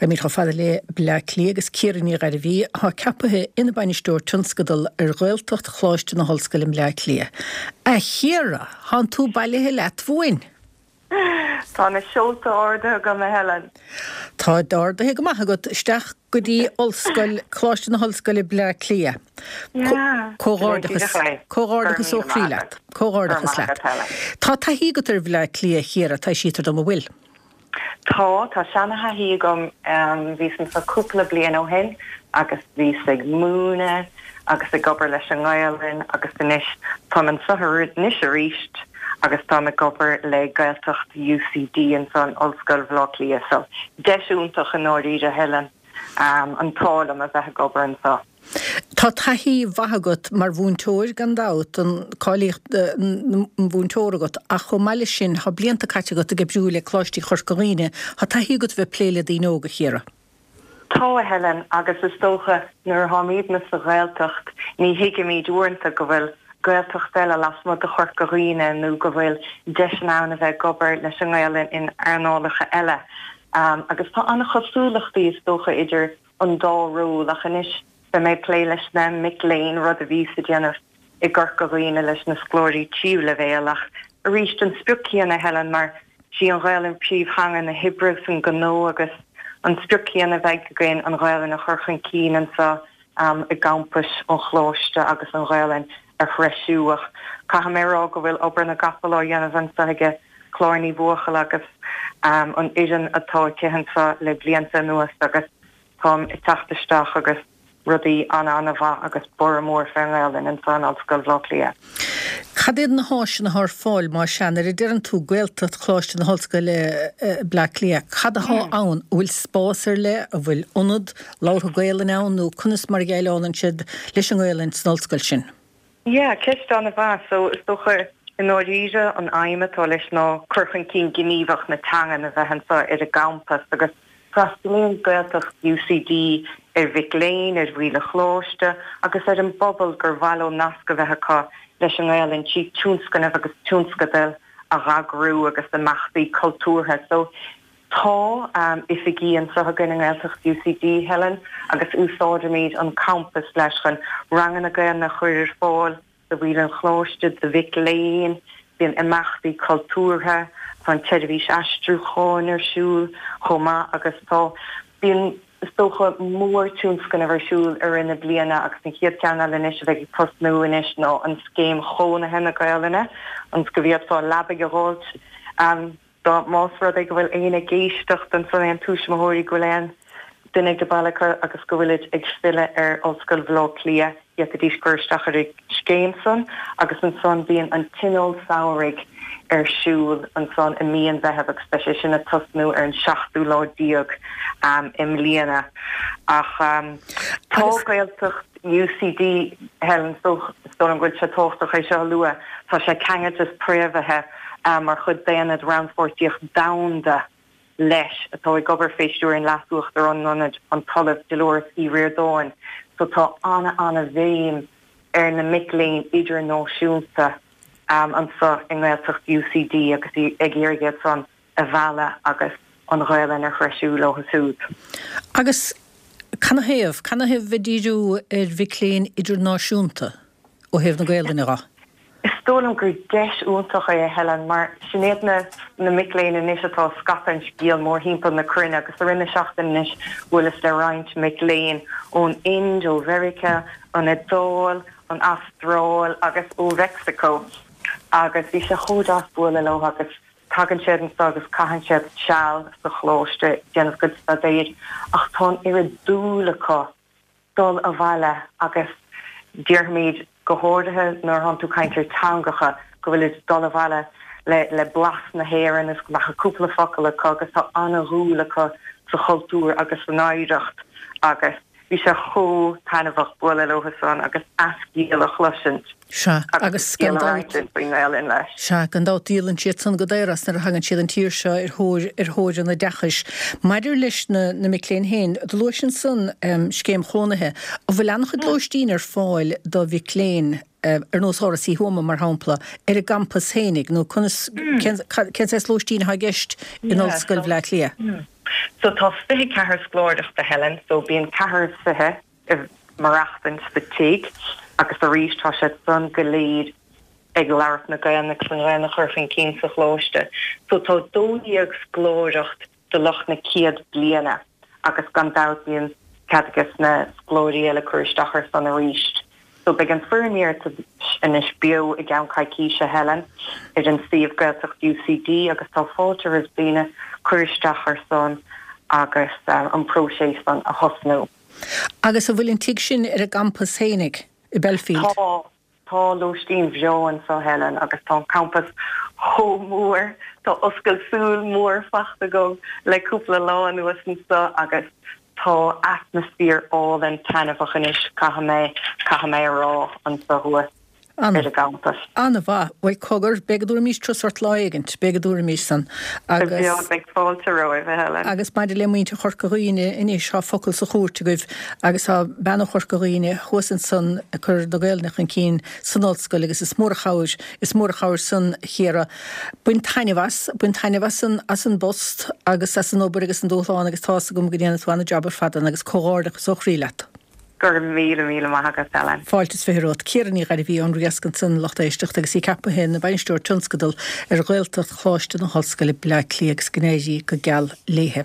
Raghaimid chomh fada le Bleá Cliath agus Ciara Ní Ghairbhí, atá ceapaithe ina Bainisteoir Tionscadal ar Ghaeltacht Choláiste na hOllscoile i mBleá Cliath. A Chiara, thánn tú bailithe leat uainn! Tá na seolta ardaithe agam, a Helen. Táid ardaithe go maith agat isteach go dtí Ollscoil, Coláiste na hOllscoile Bleá Cliath. Comhghairdeachas, comhghairdeachas ó chroí leat. Comhghairdeachas leat. Tá taithí agat ar Bhleá Cliath, a Chiara, taibhsítear dom, an bhfuil? Tá, tá seana-thaithí agam. Bhíos anso cúpla bliain ó shin agus bhíos ag múineadh agus ag obair leis an nGaelainn agus anois táim anso anois arís agus táim ag obair le Gaeltacht UCD anso in Ollscoil Bhaile Átha Cliath. So, deis iontach i ndáiríre, Helen, an t-ádh liom a bheith ag obair anso. Tá taithí mhaith agat mar mhúinteoir gan dabht, an cáilíocht an mhúinteora agat, ach chomh maith leis sin tá blianta caite agat ag oibriú le Coláistí Chorca Dhuibhne. Tá taithí agat a bheith ag plé le daoine óga, a Chiara. Tá, a Helen, agus is dócha nuair atáimidne sa Ghaeltacht ní thuigimid uaireanta go bhfuil Gaeltacht eile lasmuigh de Chorca Dhuibhne nó go bhfuil deiseanna ann a bheith ag obair leis an nGaelainn in earnálacha eile. Agus tá an-chosúlachtaí is dócha idir an dá ról ach anois beidh mé ag plé leis na mic léinn, rud a bhíos ag déanamh i gCorca Dhuibhne leis na scoláirí tríú leibhéal ach arís an sprioc céanna Helen mar sí an Ghaelainn príomhtheanga na hoibre agus an gnó agus an sprioc céanna a bheidh againn an Ghaelainn a chur chun cinn anseo i gcampais an Choláiste agus an Ghaelainn a threisiú ach caithfidh mé a rá go bhfuil obair na gcapall á dhéanamh anseo aige Clár Ní Bhuachalla agus an fhoireann atá aici anseo le blianta anuas agus táim ag teacht isteach agus rudaí ana-ana-mhaith agus borradh mór fén nGaelainn anseo in Ollscoil Bhaile Átha Cliath. Cad iad na háiseanna atá ar fáil más ea, nuair a deireann tú Gaeltacht Choláiste na hOllscoile Bleá Cliath, cad atá ann? An bhfuil spás ar leith, an bhfuil ionad labhartha Gaelainne ann nó conas mar a dhéileálann siad leis an nGaelainn san ollscoil sin? Yeah, ceist an-mhaith. So, is dócha, i ndáiríre, an aidhm atá leis ná cur chun cinn gníomhach na teangan a bheith anseo ar an gcampas agus freastalaíonn Gaeltacht UCD ar mhic léinn, ar bhaill an choláiste agus ar an bpobal gur mhaith leo nasc a bheith acu leis an nGaelainn trí tionscnaimh agus tionscadail a dh'eagrú agus imeachtaí cultúrtha. So, Tá oifigí anseo againn i nGaeltacht UCD, Helen, agus úsáidimid an campas leis chun ranganna Gaelainne a chur ar fáil do bhaill an choláiste, do mhic léinn, bíonn imeachtaí cultúrtha, tá an tseirbhís aistriúcháin ar siúl chomh maith agus tá, bíonn is dócha mórtionscnamh ar siúl i rith na bliana agus an chéad cheann eile anois a bheidh ag tosnú anois ná an Scéim Chónaithe na Gaelainne, ionas go bhféadfá leabaidh a dh'fháilt. Dá más rud é go bhfuil éinne ag éisteacht ansan, aon tuismitheoirí, go bhfuil aon duine ag baile acu agus go bhfuilid ag filleadh ar Ollscoil Bhaile Átha Cliath, d'fhéadfaidís cur isteach ar an scéim san agus ansan bíonn an Tionól Samhraidh ar siúl ansan i mí an Mheithimh agus beidh sé sin ag tosnú ar an seachtú lá déag i mbliana. Ach tá Gaeltacht UCD, Helen, is dóigh liom go bhfuil sé tábhachtach é seo a lua, tá sé ceangailte is préamhaithe mar chuid d'Aonad Rannpháirtíocht Domhanda leis, atá ag obair fé stiúir an Leas-Uachtarán an Ionaid, an tOllamh Dolores Uí Ríordáin. So tá ana-ana-bhéim ar na mic léinn idirnáisiúnta anso i nGaeltacht UCD agus ag iarraidh iad san a mhealladh agus an Ghaelainn a threisiú leo siúd. Agus canathaobh? Canathaobh bheith ag díriú ar mhic léinn idirnáisiúnta ó thaobh na Gaelainne dhe? Is dóigh liom gur deis iontach é, a Helen, mar sin iad na na mic léinn anois atá ag scaipeadh an scéil mórthimpeall na cruinne agus i rith na seachtaine anois bhuaileas le roinnt mic léinn ón Ind, ó Mheiriceá, an Iodáil, an Astráil agus ó Mheicsiceo agus bhí sé chomh deas bualadh leo agus tagann siad anseo agus caitheann siad seal sa choláiste ag déanamh a gcuid staidéir ach tá an oiread dúil acu dul abhaile agus déarfaimid, go háirithe nuair atánn tú ag caint ar teangacha, go bhfuilid ag dul abhaile le le blas na hÉireann is go mbeadh cúpla focal acu agus tá ana-dhúil acu sa chultúr agus san oidhreacht agus bhí sé chomh taitneamhach bualadh leo san agus a scéal a chloisint Sea, agus gan dabht, faoin nGaelainn leis. Sea, gan dabht díolann siad san go daor as nuair a thagann siad an tír seo ar thóir, ar thóir an oideachais. Maidir leis na, na mic léinn féin, do luais ansan scéim chónaithe. An bhfuil an-chuid lóistín ar fáil do mhic léinn, ar nós Áras Uí Thuama, mar shampla, ar an gcampas féinig, nó conas, cén, cén saghas lóistín atá i gceist in Ollscoil Bhleá Cliath? So tá 24 scoláireacht a Helen, so bíonn ceathrar is fiche ag maireachtaint sa tigh agus arís tá siad san go léir ag labhairt na Gaelainne agus an Ghaelainn a chur chun cinn sa choláiste. So tá 12 scoláireacht do lucht na céad bliana agus gan dabht bíonn cead ages na scoláirí eile cur isteach ar san arís. So beidh an foirm iarratais anois beo i gceann coicíse, Helen, ar an suíomh Gaeltacht UCD agus tá fáilte roimh daoine cur isteach ar san agus an próiseas san a thosnú. Agus an bhfuil an tigh sin ar an gcampas fhéinig i Belfield? Tá. Tá lóistín bhreá anso, Helen, agus tá an campas chomh mór. Tá oscailt súl mór fachta agam le cúpla lá anuas anso agus tá atmaisféar álainn taitneamhach anois, caithfidh mé, caithfidh mé a rá, anso thuas ar an gcampas. An-mhaith. Bhuel, cogar, beidh go dtabharfaimís turas ort lá éigint, beidh go dtabharfaimís san. Agus. Beidh fáilte romhaibh, a Helen. Agus maidir le muintir Chorca Dhuibhne anois, tá focal sa chúirt agaibh agus tá bean ó Chorca Dhuibhne thuas ansan ag cur na Gaelainne chun cinn san ollscoil agus is mór an chabhair, is mór an chabhair san, a Chiara. Bain taitneamh as, bain taitneamh as an, as an bpost agus as an obair agus an dúshlán agus tá's agam go ndéanfaidh tú an-jab ar fad ann agus comhghairdeachas ó chroí leat. Go raibh míle, míle maith agat, Helen. Fáilte is 20 romhat. Ciara Ní Ghairbhí ón Riasc ansan, lucht éisteachta, agus í ceaptha ina Bainisteoir Tionscadal ar Ghaeltacht Choláiste na hOllscoile, Bleá Cliath agus go n-éirí go geal léithe.